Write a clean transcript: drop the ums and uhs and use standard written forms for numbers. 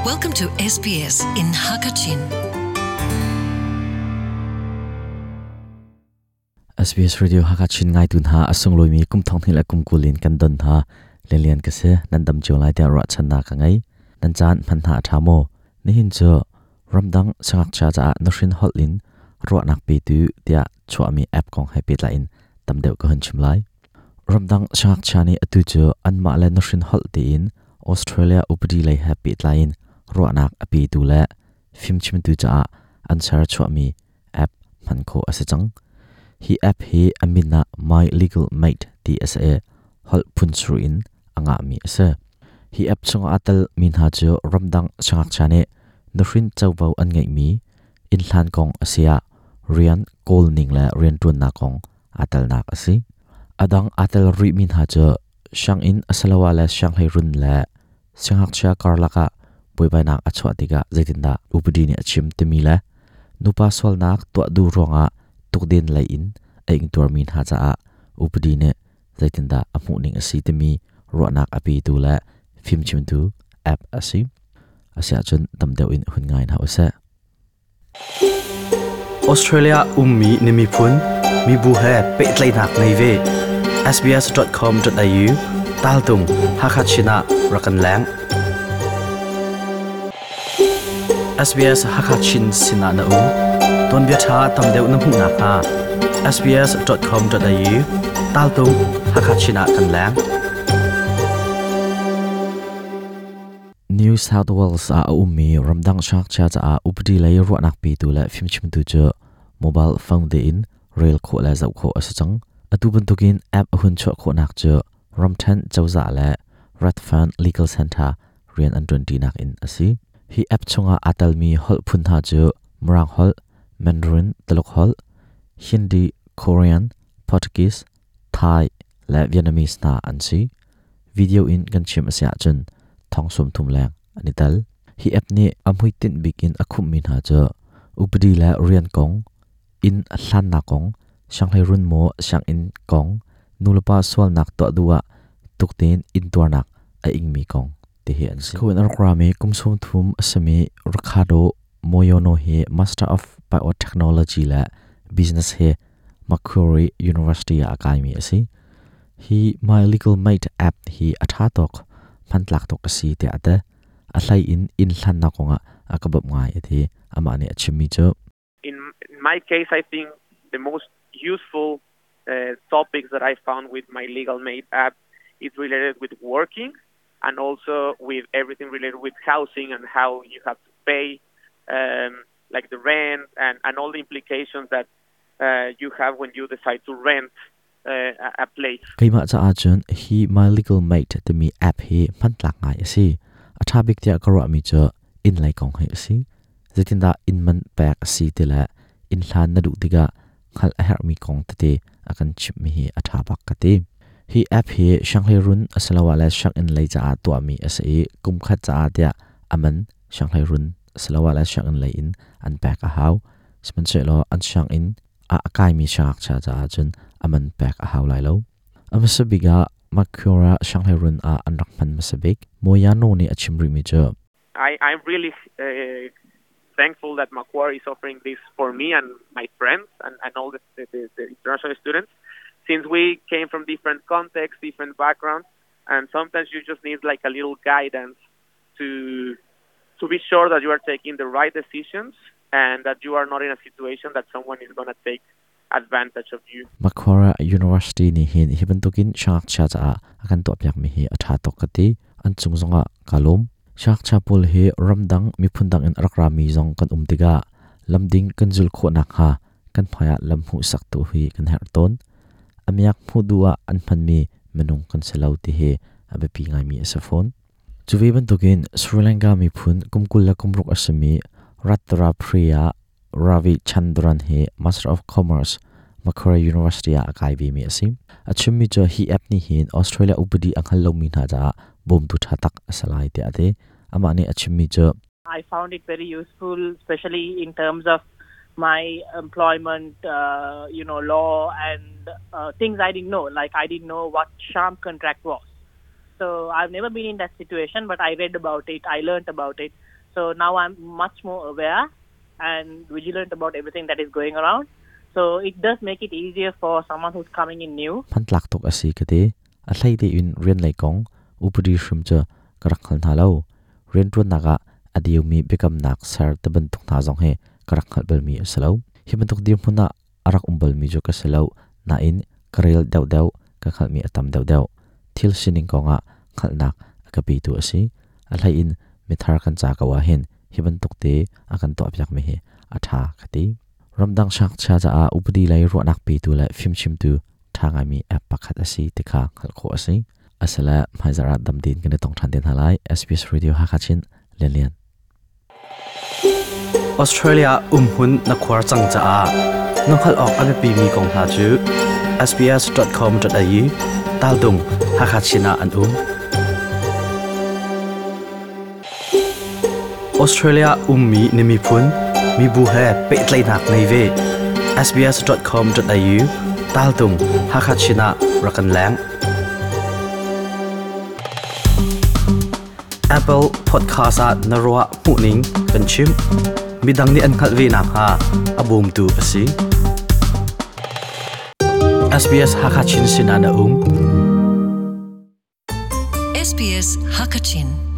Welcome to SBS in Hakachin. SBS Radio Hakachin ngai tun ha asung loimi kum thong hi la kum kulin kan don ha lelian ka se nan dam chiu lai te ra chan na ka ngai nan chan man ha tha mo ni hin cho ramdang sangak cha cha na hrin hol in ro nak pe tu tia chwa mi app kong hai pe la in tam deuh ka hun chim lai ramdang sangak cha ni atu chu an ma le na hrin hol ti in Australia upadi lei he pe tlai in ro nak api tu le phim chim tu cha an sar chwa mi app man kho ase chang hi app hi amina My Legal Mate ti ase hol phun sru in anga mi ase hi app chunga atal min ha chu ramdang sangak chane nuhrin chawbo an ngai mi in hlan kong asia rian kol ning la rian tun na kong atal nak ase adang atal ri min ha chu shang in asalawa la shang hai run la sangak cha karlaka buibai nak achwa tiga zaitinda upadi ni achim temi la nupa swal nak to du ronga tukden lai in aing tur min ha cha a upadi ne zaitinda amu ning asi temi ro nak api tu la phim chim tu app asi asia chun tamdeu in hun ngai na ose. Australia ummi nimi phun mi bu he pe tlai nak nei ve sbs.com.au tal tung Hakachina rakan lang SBS Hakachin sina na u ton bia tha tam deuh na hmu nak ha sbs.com.au tal tung Hakachina kan lang. New South Wales a ummi ramdang shak cha cha a updi lei ro nak pi tu la phim chim tu chu mobile phone de in rail kho la zau kho asachang atu ban tukin app hun chho kho nak chu ramthan chawza la Redfern Legal Center rian an 20 nak in asi hi app chunga atal mi hol phun ha chu mrang hol Mandarin Taluk hol Hindi Korean Portuguese Thai la Vietnamese na an si video in kan chim asia chun thong sum thum lang ani tal hi app ni amhui tin bikin akhum min ha cha updi la rian kong in hlan na kong shanghai run mo shang in kong nulapa swal nak to duwa tukten in tuar nak a ing mi kong te hi an si khuen arkrami kumsum thum asami Ricardo Moyono he Master of Biotechnology la Business he Macquarie University a kai mi asi hi My Legal Mate app hi atha tok phantlak tok asi te ate a hlai in in hlan na konga akabab ngai ati ama ni achimi chu. In my case, I think the most useful topics that I found with My Legal Mate app is related with working and also with everything related with housing and how you have to pay, like the rent and all the implications that you have when you decide to rent a place. Keima cha a chun hi My Legal Mate te mi app hi phantlak ngai asi atha bik tia karwa mi cha in lai kong hai asi zetinda in man pek asi te la in hlan na du tiga khal a her mi kong te te akan chip mi hi atha bak ka te hi app hi shanghai run asalawa la shang in lai cha a to mi ase kum khat cha a tia aman shanghai run asalawa la shang in lai in an pek a hau sman che lo an shang in a akai mi shak cha cha chun aman pek a hau lai lo amasabiga Macquarie Shanghai run a anrak man masabik moyano ni achimri mi cha. I'm really thankful that Macquarie is offering this for me and my friends and all the international students, since we came from different contexts, different backgrounds, and sometimes you just need like a little guidance to be sure that you are taking the right decisions and that you are not in a situation that someone is going to take advantage of you. Macquarie University ni hin hiban tokin shak cha cha akan to pyak mi hi atha tok kati an chungzonga kalom shak cha pol he ramdang mi phundang in rakrami zong kan umtiga lamding kanjul kho nak ha kan phaya lamhu sak tu hi kan her ton amiak phu duwa an phan mi menung kan selau ti he abe pi ngai mi asafon chuwe ban tokin Sri Lanka mi phun kumkul la kumruk asami Ratra Priya Ravi Chandran he Master of Commerce Macquarie University a kai bi mi asim achim mi cho hi app ni hin Australia upadi anghal lo mi na ja bom tu thatak asalai te ate ama ni achim mi cho. I found it very useful, especially in terms of my employment, law and things I didn't know. Like I didn't know what sham contract was. So I've never been in that situation, but I read about it, I learned about it. So now I'm much more aware and vigilant about everything that is going around. So it does make it easier for someone who's coming in new. Hmantlak tuk a si ka ti. A hlei tein rian lei kong upadi hrim cu ka rak hngal hna lo. Rianṭuannak ah a diumi biakamnak ser tibantuk hna zong hi ka rak hngalh balmi a si lo. Hi bantuk dirhmun ah a rak um balmi cu ka si lo nain ka rel deuhdeuh ka hngalhmi a tam deuhdeuh. Thil sining kongah hngalhnak a ka petu a si. A hlei in mithar kan ca ko ahhin hi bantuk te a kan tuahpiakmi hi a ṭha ka ti. Ramdang siangngakchia caah upadi lei ruahnak petu le fimchimtu ṭha ngaimi app pakhat a si ti kha hngalh khawh a si. Asile hmaizarh ah dam tein kan i tong ṭhan te hna lai. SBS Radio Hakha Chin Lianlian. Australia umhmun na khuar cang caah na hngalh awk a biapimi kong hna cu sbs.com.au taltung Hakha Chin ah an um. Australia ummi na miphun mibu he pehtlaihnak ngei ve. sbs.com.au taltung Hakha Chin ah rak kan leng. Apple Podcast ah na ruah hmuhning kan chim. Midang nih an hngalh ve nakhnga a bawmtu a si. SBS Hakha Chin sinah na um. SBS Hakachin.